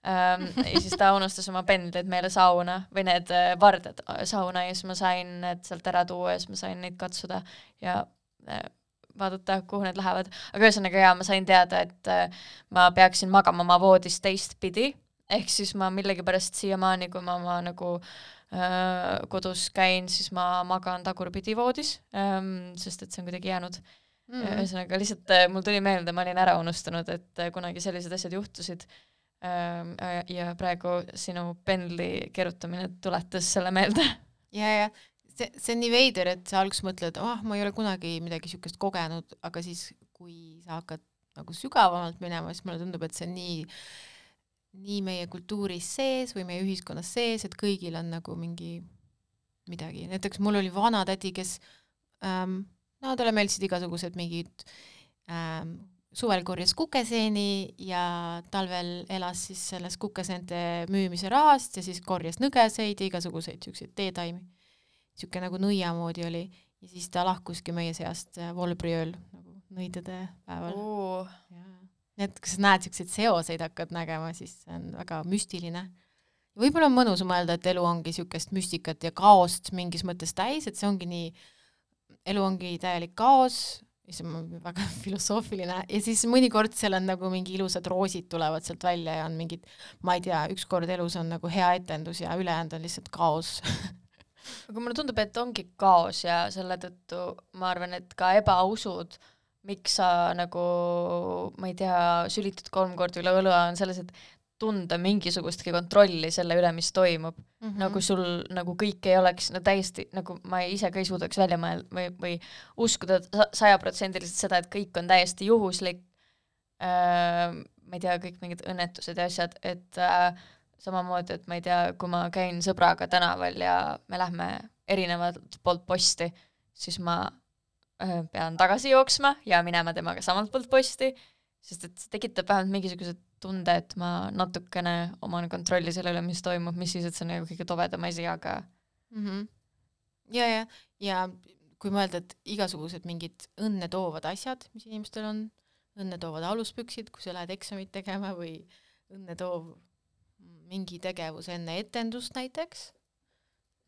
Ja siis ta unustas oma pendlid meile sauna või need vardad sauna ja siis ma sain need sealt ära tuua ja siis ma sain neid katsuda ja vaadata, kuhu need lähevad. Aga ühesõnaga ma sain teada, et ma peaksin magama oma voodis teistpidi, ehk siis ma millegipärast siiamaani, kui ma nagu kodus käin, siis ma magan tagurpidi voodis, sest et see on kuidagi jäänud. Ühesõnaga lihtsalt mul tuli meelde, ma olin ära unustanud, et kunagi sellised asjad juhtusid ja praegu sinu pendli kerutamine tuletas selle meelde. Ja see on nii veider, et sa alguses mõtled, ma ei ole kunagi midagi siukest kogenud, aga siis kui sa hakkad nagu sügavamalt minema, siis mulle tundub, et see on nii meie kultuuris sees või meie ühiskonnas sees, et kõigil on nagu midagi. Näiteks mul oli vanatädi, kes talle meeldisid igasugused mingid suvel korjas kukeseeni ja talvel elas siis selles kukeseente müümise rahast ja siis korjas nõgeseid ja igasuguseid siukseid teetaimi. Siuke nagu nõiamoodi oli ja siis ta lahkuski meie seast volbriööl nagu nõidade päeval. Need, kui sa näed siukseid seoseid hakkad nägema, siis see on väga müstiline. Võib-olla on mõnus mõelda, et elu ongi siukest müstikat ja kaost mingis mõttes täis, et see ongi nii elu ongi täielik kaos, see on väga filosoofiline ja siis mõnikord seal on nagu mingi ilusad roosid tulevad sealt välja ja on mingid, ma ei tea, ükskord elus on nagu hea etendus ja ülejäänud on lihtsalt kaos. Aga mulle tundub, et ongi kaos ja selle tõttu ma arvan, et ka ebausud, miks sa nagu, ma ei tea, sülitud 3 korda üle õlua on selles, et tunda mingisugustki kontrolli selle üle, mis toimub. Nagu sul nagu kõik ei oleks täiesti, nagu ma ise ka ei suudaks välja mõelda või uskuda 100% seda, et kõik on täiesti juhuslik. Ma ei tea, kõik mingid õnnetused ja asjad, et samamoodi, et ma ei tea, kui ma käin sõbraga tänaval ja me lähme erinevalt poolt posti, siis ma pean tagasi jooksma ja minema temaga samalt poolt posti, sest et see tekitab vähemalt mingisugused tunde, et ma natukene oman kontrolli selle üle, mis toimub, mis siis, et see on nagu kõige tovedam asi, aga ja kui mõelda, et igasugused mingid õnne toovad asjad, mis inimestel on, õnne toovad aluspüksid, kui sa lähed eksamit tegema või õnne toov mingi tegevus enne etendust näiteks,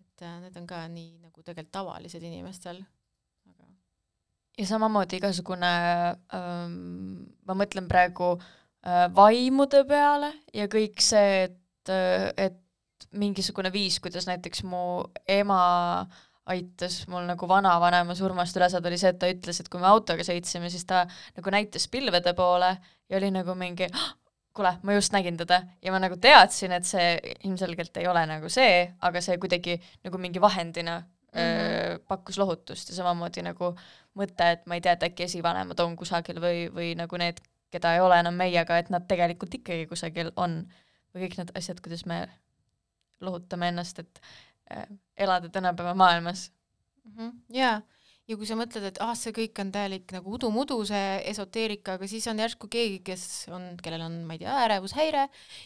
et need on ka nii nagu tegelikult tavalised inimestel. Ja samamoodi igasugune, ma mõtlen praegu vaimude peale ja kõik see, et mingisugune viis, kuidas näiteks mu ema aitas mul nagu vanavanema surmast üle saada, oli see, et ta ütles, et kui me autoga sõitsime, siis ta nagu näitas pilvede poole ja oli nagu mingi kuule, ma just nägin teda ja ma nagu teadsin, et see ilmselgelt ei ole nagu see, aga see kuidagi nagu mingi vahendina pakkus lohutust ja samamoodi nagu mõte, et ma ei tea, et äkki esivanemad on kusagil või nagu need, keda ei ole enam meiega, et nad tegelikult ikkagi kusagil on või kõik need asjad, kuidas me lohutame ennast, et elada tänapäeva maailmas. Jaa, ja kui sa mõtled, et see kõik on täielik nagu udu-mudu, see esoteerika, aga siis on järsku keegi, kellel on, ma ei tea, ärevushäire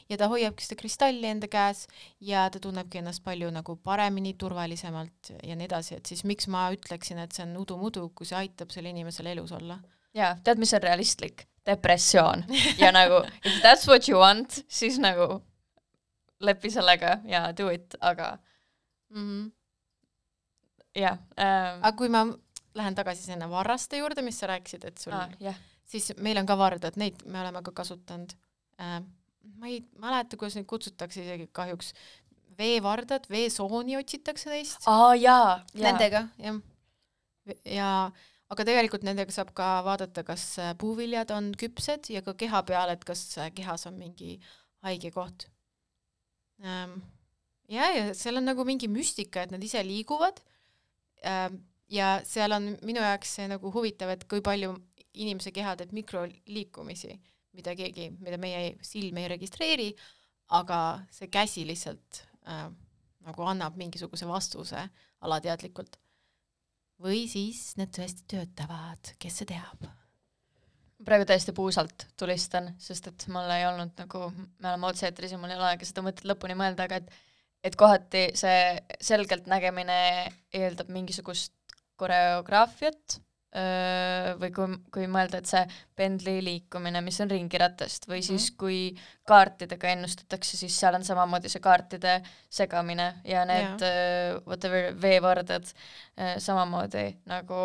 ja ta hoiabki seda kristalli enda käes ja ta tunnebki ennast palju nagu paremini, turvalisemalt ja nii edasi, et siis miks ma ütleksin, et see on udu-mudu, kui see aitab selle inimesel elus olla? Jaa, tead, mis on realistlik? Depressioon. Ja nagu, if that's what you want, siis nagu lepi sellega ja do it, aga jah. Aga kui ma lähen tagasi sinna varraste juurde, mis sa rääkisid, et sul siis meil on ka vardad, neid me oleme ka kasutanud. Ma ei mäleta, kuidas neid kutsutakse isegi kahjuks. Veevardad, veesooni otsitakse neist. Jaa. Nendega, jah. Ja aga tegelikult nendega saab ka vaadata, kas puuviljad on küpsed ja ka keha peal, et kas kehas on mingi haige koht. Ja seal on nagu mingi müstika, et nad ise liiguvad ja seal on minu jaoks see nagu huvitav, et kui palju inimese keha teeb mikroliikumisi, mida meie silm ei registreeri, aga see käsi lihtsalt nagu annab mingisuguse vastuse alateadlikult. Või siis need tõesti töötavad, kes see teab? Praegu täiesti puusalt tulistan, sest et mul ei olnud nagu, me oleme otseetris ja mul ei ole aega seda mõtet lõpuni mõelda, aga et kohati see selgelt nägemine eeldab mingisugust koreograafiat või kui mõelda, et see pendli liikumine, mis on ringiratast või siis kui kaartidega ennustatakse, siis seal on samamoodi see kaartide segamine ja need whatever veevardad samamoodi nagu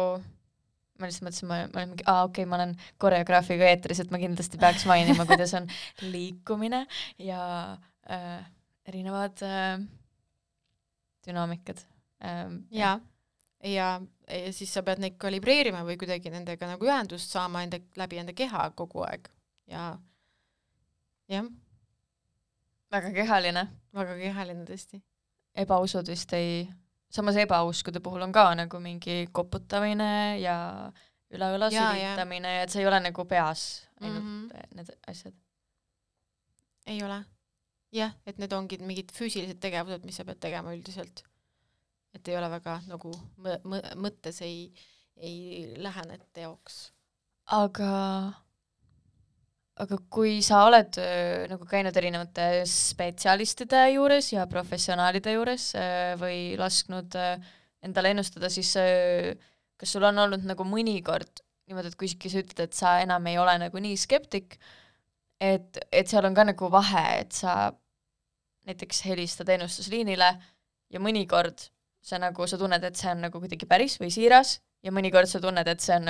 ma lihtsalt mõtlesin, ma olen mingi, ma olen koreograafiga eetris, et ma kindlasti peaks mainima, kuidas on liikumine ja erinevad dünaamikad. Ja siis sa pead neid kalibreerima või kuidagi nendega nagu ühendust saama läbi enda keha kogu aeg. Ja jah. Väga kehaline. Väga kehaline tõesti. Ebausud vist samas ebauskude puhul on ka nagu mingi koputamine ja üle-üle sülitamine ja et see ei ole nagu peas ainult need asjad. Ei ole. Jah, et need ongi mingid füüsilised tegevused, mis sa pead tegema üldiselt. Et ei ole väga nagu mõttes ei lähene teoks. Aga kui sa oled nagu käinud erinevate spetsialistide juures ja professionaalide juures või lasknud endale ennustada, siis kas sul on olnud nagu mõnikord niimoodi, et kui sa ütled, et sa enam ei ole nagu nii skeptik, et seal on ka nagu vahe, et sa näiteks helistad ennustusliinile ja mõnikord sa tunned, et see on nagu kuidagi päris või siiras ja mõnikord sa tunned, et see on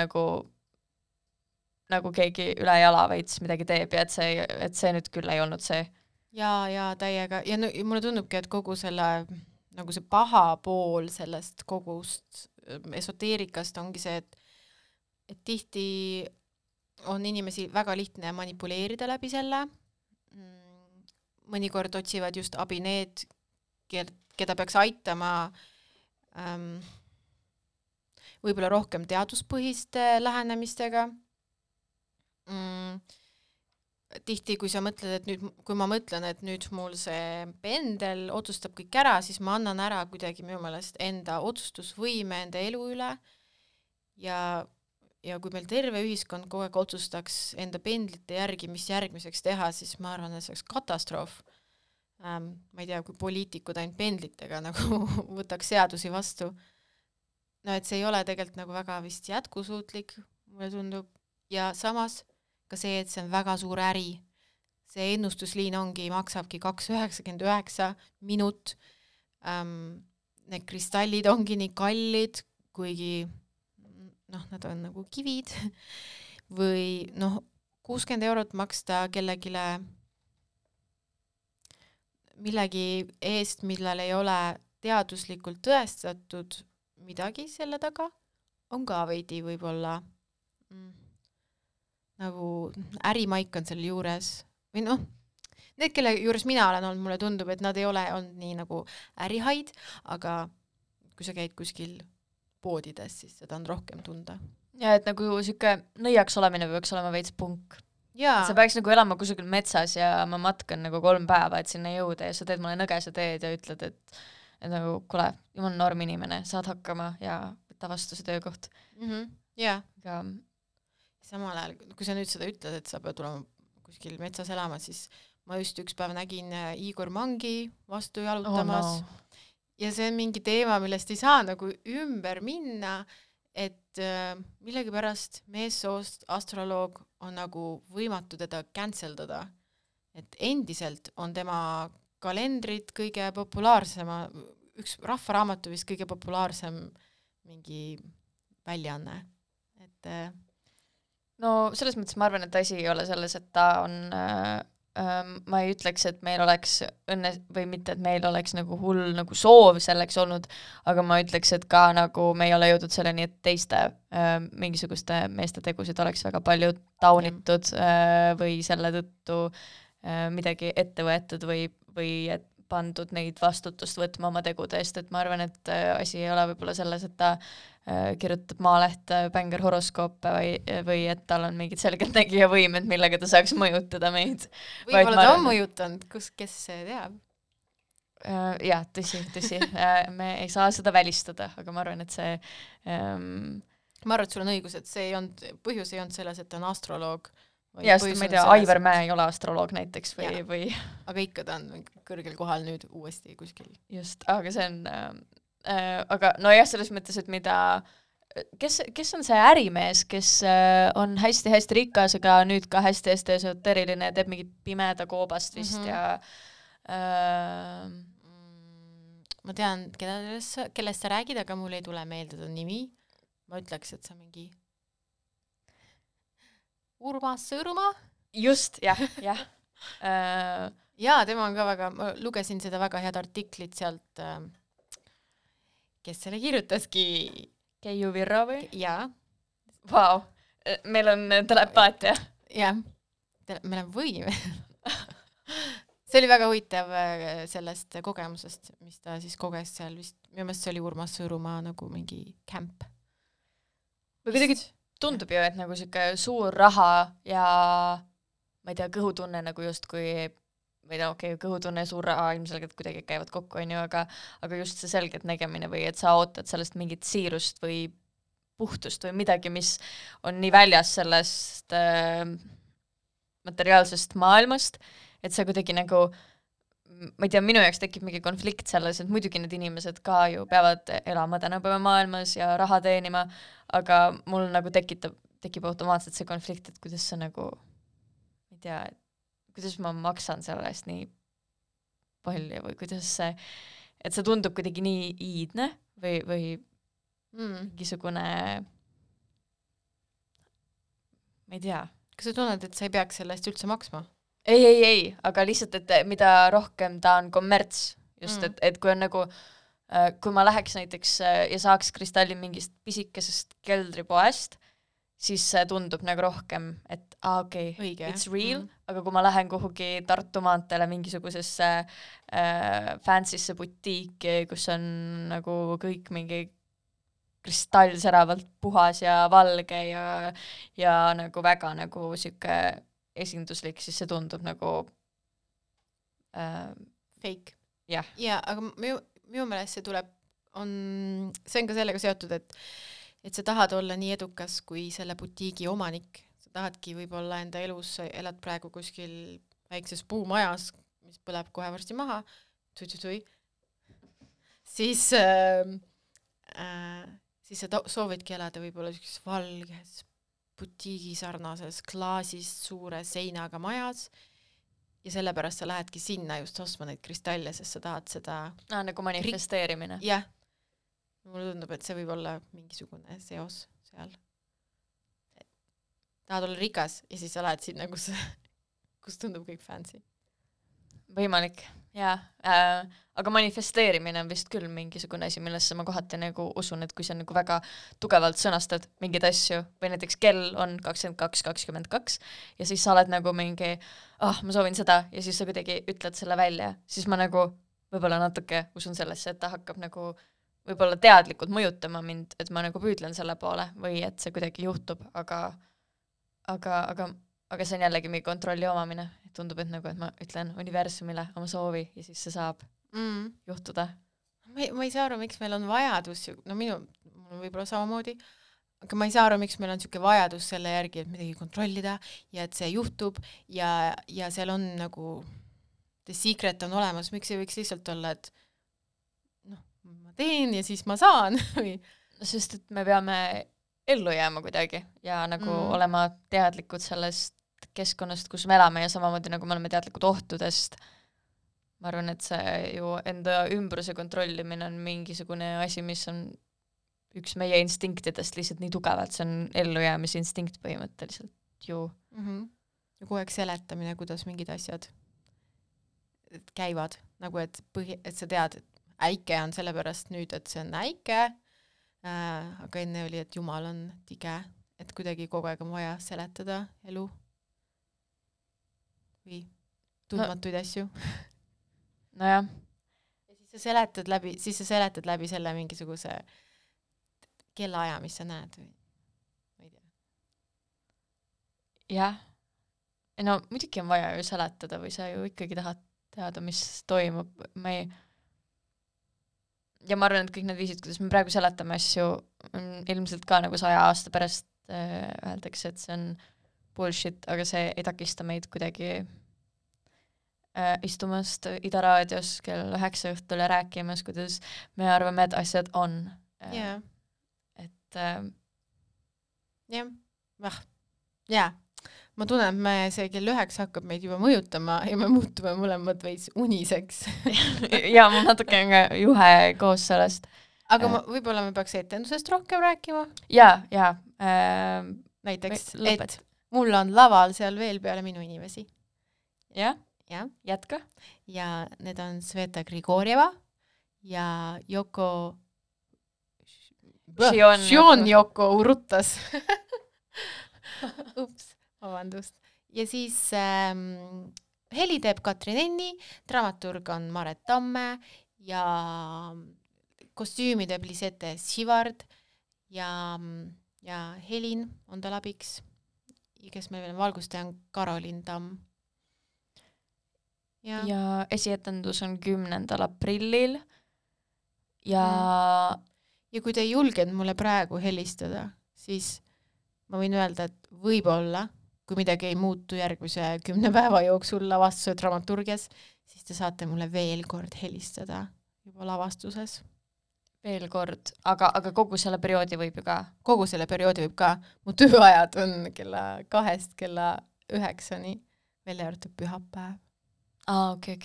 nagu keegi üle jala veits midagi teeb ja et see nüüd küll ei olnud see. Ja täiega. Ja mulle tundubki, et kogu selle nagu see paha pool sellest kogust esoteerikast ongi see, et tihti on inimesi väga lihtne manipuleerida läbi selle. Mõnikord otsivad just abi need, keda peaks aitama võib-olla rohkem teaduspõhiste lähenemistega. Tihti, kui sa mõtled, et nüüd, kui ma mõtlen, et nüüd mul see pendel otsustab kõik ära, siis ma annan ära kuidagi minu meelest enda otsustusvõime enda elu üle ja kui meil terve ühiskond kogu aeg otsustaks enda pendlite järgi, mis järgmiseks teha, siis ma arvan, et see oleks katastroof. Ma ei tea, kui poliitikud ainult pendlitega nagu võtaks seadusi vastu. No et see ei ole tegelikult nagu väga vist jätkusuutlik, mulle tundub. Ja samas ka see, et see on väga suur äri. See ennustusliin maksabki 2,99 minut. Need kristallid ongi nii kallid, kuigi nad on nagu kivid. Või 60 € maksta kellegile millegi eest, millal ei ole teaduslikult tõestatud midagi selle taga, on ka veidi võib-olla nagu ärimaik on selle juures või noh, need, kelle juures mina olen olnud, mulle tundub, et nad ei ole olnud nii nagu ärihaid, aga kui sa käid kuskil poodides, siis seda on rohkem tunda. Ja et nagu siuke nõiaks olemine peaks olema veits punk. Jaa. Sa peaks nagu elama kusagil metsas ja ma matkan nagu 3 päeva, et sinna jõuda ja sa teed mulle nõgese teed ja ütled, et nagu kuule, jumal norm inimene, saad hakkama ja võtta vastu see töökoht. Jaa. Aga samal ajal, kui sa nüüd seda ütled, et sa pead tulema kuskil metsas elama, siis ma just üks päev nägin Igor Mangi vastu jalutamas ja see on mingi teema, millest ei saa nagu ümber minna, et millegipärast meessoost astroloog on nagu võimatu teda canceldada. Et endiselt on tema kalendrid kõige populaarsema, üks rahvaraamatu vist kõige populaarsem mingi väljaanne. Et no selles mõttes ma arvan, et asi ei ole selles, et ta on ma ei ütleks, et meil oleks õnne või mitte, et meil oleks nagu hull nagu soov selleks olnud, aga ma ütleks, et ka nagu me ei ole jõudnud selleni, et teiste mingisuguste meeste tegusid oleks väga palju taunitud või selle tõttu midagi ette võetud või et pandud neid vastutust võtma oma tegude eest, et ma arvan, et asi ei ole võib-olla selles, et ta kirjutab Maalehte bänger horoskoope või et tal on mingid selgeltnägija võimed, millega ta saaks mõjutada meid. Võib-olla ta on mõjutanud, kes see teab? Jah, tõsi. Me ei saa seda välistada, aga ma arvan, et see ma arvan, et sul on õigus, et see ei olnud, põhjus ei olnud selles, et ta on astroloog. Ja, sest ma ei tea, Aivar Mäe ei ole astroloog näiteks või... Aga ikka ta on kõrgel kohal nüüd uuesti kuskil. Just, aga see on... aga no jah, selles mõttes, et mida... Kes on see ärimees, kes on hästi-hästi rikas, aga nüüd ka hästi-hästi esoteriline, teeb mingit pimeda koobast vist ja... Ma tean, kellest sa räägid, aga mul ei tule meelde ta nimi. Ma ütleks, et sa mingi... Urmas Sõõrumaa? Just, jah. Jaa, tema on ka väga, ma lugesin seda väga head artiklit sealt, kes selle kirjutaski. Keiu Virro või? Jaa. Vau, meil on telepaatia. Jah, meil on võim. See oli väga huvitav sellest kogemusest, mis ta siis koges seal vist, minu meelest see oli Urmas Sõõrumaa nagu mingi camp. Või kuidagi tundub ju, et nagu siuke suur raha ja ma ei tea, kõhutunne nagu justkui või no okei, kõhutunne ja suur raha ilmselgelt kuidagi käivad kokku, on ju, aga just see selgelt nägemine või et sa ootad sellest mingit siirust või puhtust või midagi, mis on nii väljas sellest materiaalsest maailmast, et sa kuidagi nagu ma ei tea, minu jaoks tekib mingi konflikt selles, et muidugi need inimesed ka ju peavad elama tänapäeva maailmas ja raha teenima, aga mul nagu tekib automaatselt see konflikt, et kuidas sa nagu, ma ei tea, kuidas ma maksan selle eest nii palju või kuidas see, et see tundub kuidagi nii iidne või mingisugune, ma ei tea. Kas sa tunned, et sa ei peaks selle eest üldse maksma? Ei, aga lihtsalt, et mida rohkem ta on kommerts, just, et kui on nagu, kui ma läheks näiteks ja saaks kristalli mingist pisikesest keldripoest, siis see tundub nagu rohkem, et okei, it's real, aga kui ma lähen kuhugi Tartu maanteele mingisugusesse fancysse butiiki, kus on nagu kõik mingi kristallsäravalt puhas ja valge ja nagu väga nagu siuke esinduslik, siis see tundub nagu fake. Jah. Ja, aga minu meelest see tuleb, see on ka sellega seotud, et sa tahad olla nii edukas kui selle butiigi omanik. Sa tahadki võib-olla enda elus, elad praegu kuskil väikses puumajas, mis põleb kohe varsti maha, siis sa soovidki elada võib-olla valges butiigi sarnases klaasist suure seinaga majas ja sellepärast sa lähedki sinna just ostma neid kristalle, sest sa tahad seda... nagu manifesteerimine. Jah. Mulle tundub, et see võib olla mingisugune seos seal. Tahad olla rikas ja siis sa lähed sinna, kus tundub kõik fancy. võimalik, jaa. Aga manifesteerimine on vist küll mingisugune asi, millesse ma kohati nagu usun, et kui sa nagu väga tugevalt sõnastad mingeid asju või näiteks kell on 22:22 ja siis sa oled nagu mingi, ma soovin seda ja siis sa kuidagi ütled selle välja, siis ma nagu võib-olla natuke usun sellesse, et ta hakkab nagu võib-olla teadlikult mõjutama mind, et ma nagu püüdlen selle poole või et see kuidagi juhtub, aga see on jällegi mingi kontrolli omamine. Tundub, et nagu, et ma ütlen universumile oma soovi ja siis see saab juhtuda. Ma ei saa aru, miks meil on vajadus, no mul võib-olla samamoodi, aga ma ei saa aru, miks meil on niisugune vajadus selle järgi, et midagi kontrollida ja et see juhtub ja seal on nagu the secret on olemas, miks ei võiks lihtsalt olla, et ma teen ja siis ma saan või sest et me peame ellu jääma kuidagi ja nagu olema teadlikud sellest keskkonnast, kus me elame ja samamoodi nagu me oleme teadlikud ohtudest. Ma arvan, et see ju enda ümbruse kontrollimine on mingisugune asi, mis on üks meie instinktidest lihtsalt nii tugevalt, see on ellujäämise instinkt põhimõtteliselt ju. Ja kogu aeg seletamine, kuidas mingid asjad käivad, nagu et sa tead, et äike on sellepärast nüüd, et see on äike, aga enne oli, et Jumal on tige, et kuidagi kogu aeg on vaja seletada elu või tundmatuid asju. Nojah. Ja siis sa seletad läbi selle mingisuguse kellaaja, mis sa näed või ma ei tea. Jah. No muidugi on vaja ju seletada või sa ju ikkagi tahad teada, mis toimub. Ja ma arvan, et kõik need viisid, kuidas me praegu seletame asju, ilmselt ka nagu 100 aasta pärast öeldakse, et see on bullshit, aga see ei takista meid kuidagi istumast Ida raadios kell 9 õhtul ja rääkimas, kuidas me arvame, et asjad on. Et ma tunnen, et see kell 9 hakkab meid juba mõjutama ja me muutume mõlemad veits uniseks. ja ma natuke juhe koos sellest. Aga võib-olla me peaks etendusest rohkem rääkima? Ja. Näiteks, et mul on laval seal veel peale minu inimesi. Ja. Jätka. Ja need on Sveta Grigorjeva ja Yoko Shion Yoko Urutas. Ups, vabandust. Ja siis heli teeb Katrin Enni, dramaturg on Maret Tamme ja kostüümi teeb Lisette Sivard ja Helin on tal abiks, kes meil veel valgustaja on Karolin Tamm. Ja esietendus on 10. aprillil ja kui te ei julgenud mulle praegu helistada, siis ma võin öelda, et võib-olla, kui midagi ei muutu järgmise 10 päeva jooksul lavastuse dramaturgias, siis te saate mulle veel kord helistada juba lavastuses. Veel kord, aga kogu selle perioodi võib ju ka? Kogu selle perioodi võib ka. Mu tööajad on kella 2 kella 9-ni, välja arvatud pühapäev. Okay.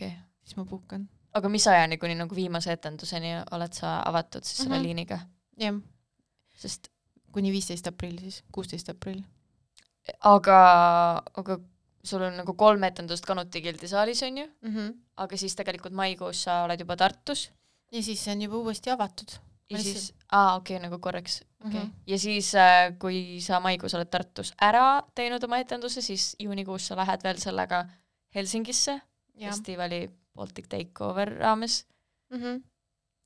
Siis ma puhkan. Aga mis ajani kuni nagu viimase etenduseni oled sa avatud siis selle liiniga? Jah. Sest kuni 15 aprill siis, 16 aprill. Aga sul on nagu 3 etendust Kanuti gildisaalis on ju, aga siis tegelikult maikuus sa oled juba Tartus. Ja siis see on juba uuesti avatud. Ja siis, nagu korraks. Okay. Ja siis, kui sa maikuus oled Tartus ära teinud oma etenduse, siis juunikuus sa lähed veel sellega Helsingisse, festivali Baltic Takeover raames.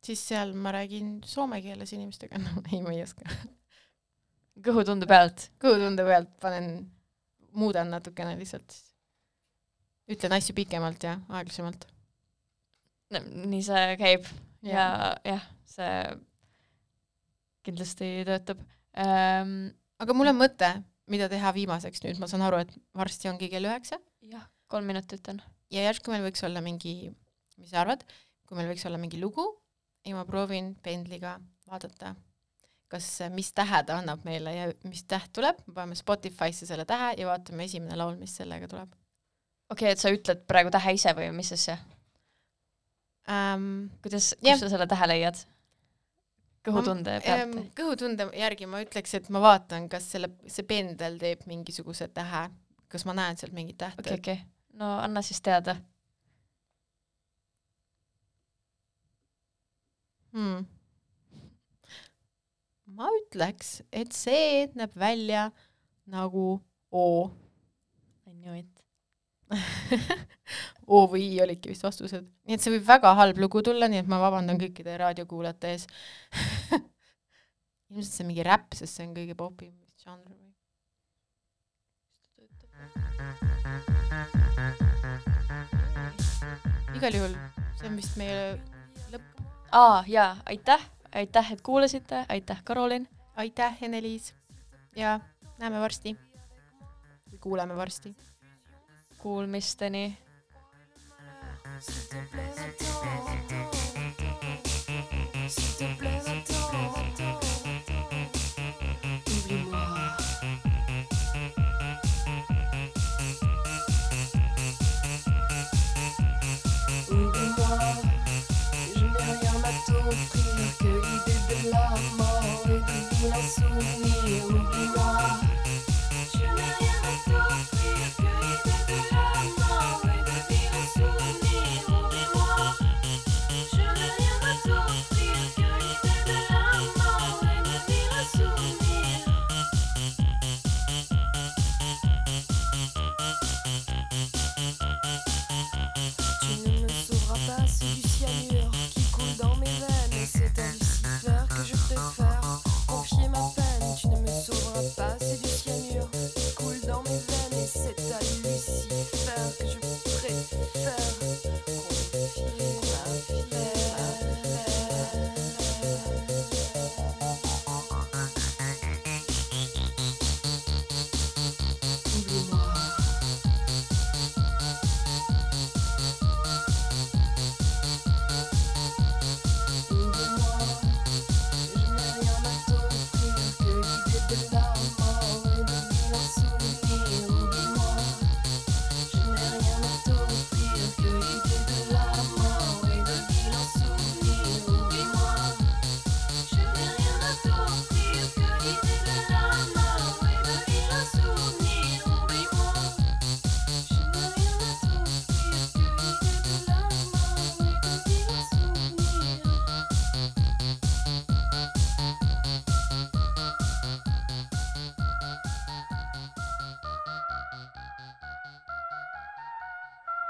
Siis seal ma räägin soome keeles inimestega. No, ei, ma ei oska. Kõhutunde pealt? Kõhutunde pealt muudan natukene lihtsalt. Ütlen asju pikemalt ja aeglasemalt. Nii see käib. Ja see kindlasti töötab. Aga mul on mõte, mida teha viimaseks nüüd. Ma saan aru, et varsti ongi kell 9. Jah, 3 minutit on. Ja järsku meil võiks olla mingi, mis sa arvad, kui meil võiks olla mingi lugu ja ma proovin pendliga vaadata, mis tähe ta annab meile ja mis täht tuleb. Me paneme Spotify'sse selle tähe ja vaatame esimene laul, mis sellega tuleb. Okei, et sa ütled praegu tähe ise või mis asja? Kus sa selle tähe leiad? Kõhutunde pealt? Kõhutunde järgi ma ütleks, et ma vaatan, kas see pendel teeb mingisuguse tähe, kas ma näen sealt mingit tähte. Okay. No anna siis teada. Ma ütleks, et see näeb välja nagu O. I knew it. O või I olidki vist vastused. Nii et see võib väga halb lugu tulla, nii et ma vabandan kõikide raadiokuulajate ees. Ilmselt see on mingi räpp, sest see on kõige popim žanr. Igal juhul, see on vist meie lõpp. Jaa, aitäh, et kuulasite, aitäh, Karolin. Aitäh, Ene-Liis. Ja näeme varsti. Või kuuleme varsti. Kuulmisteni.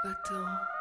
Attends.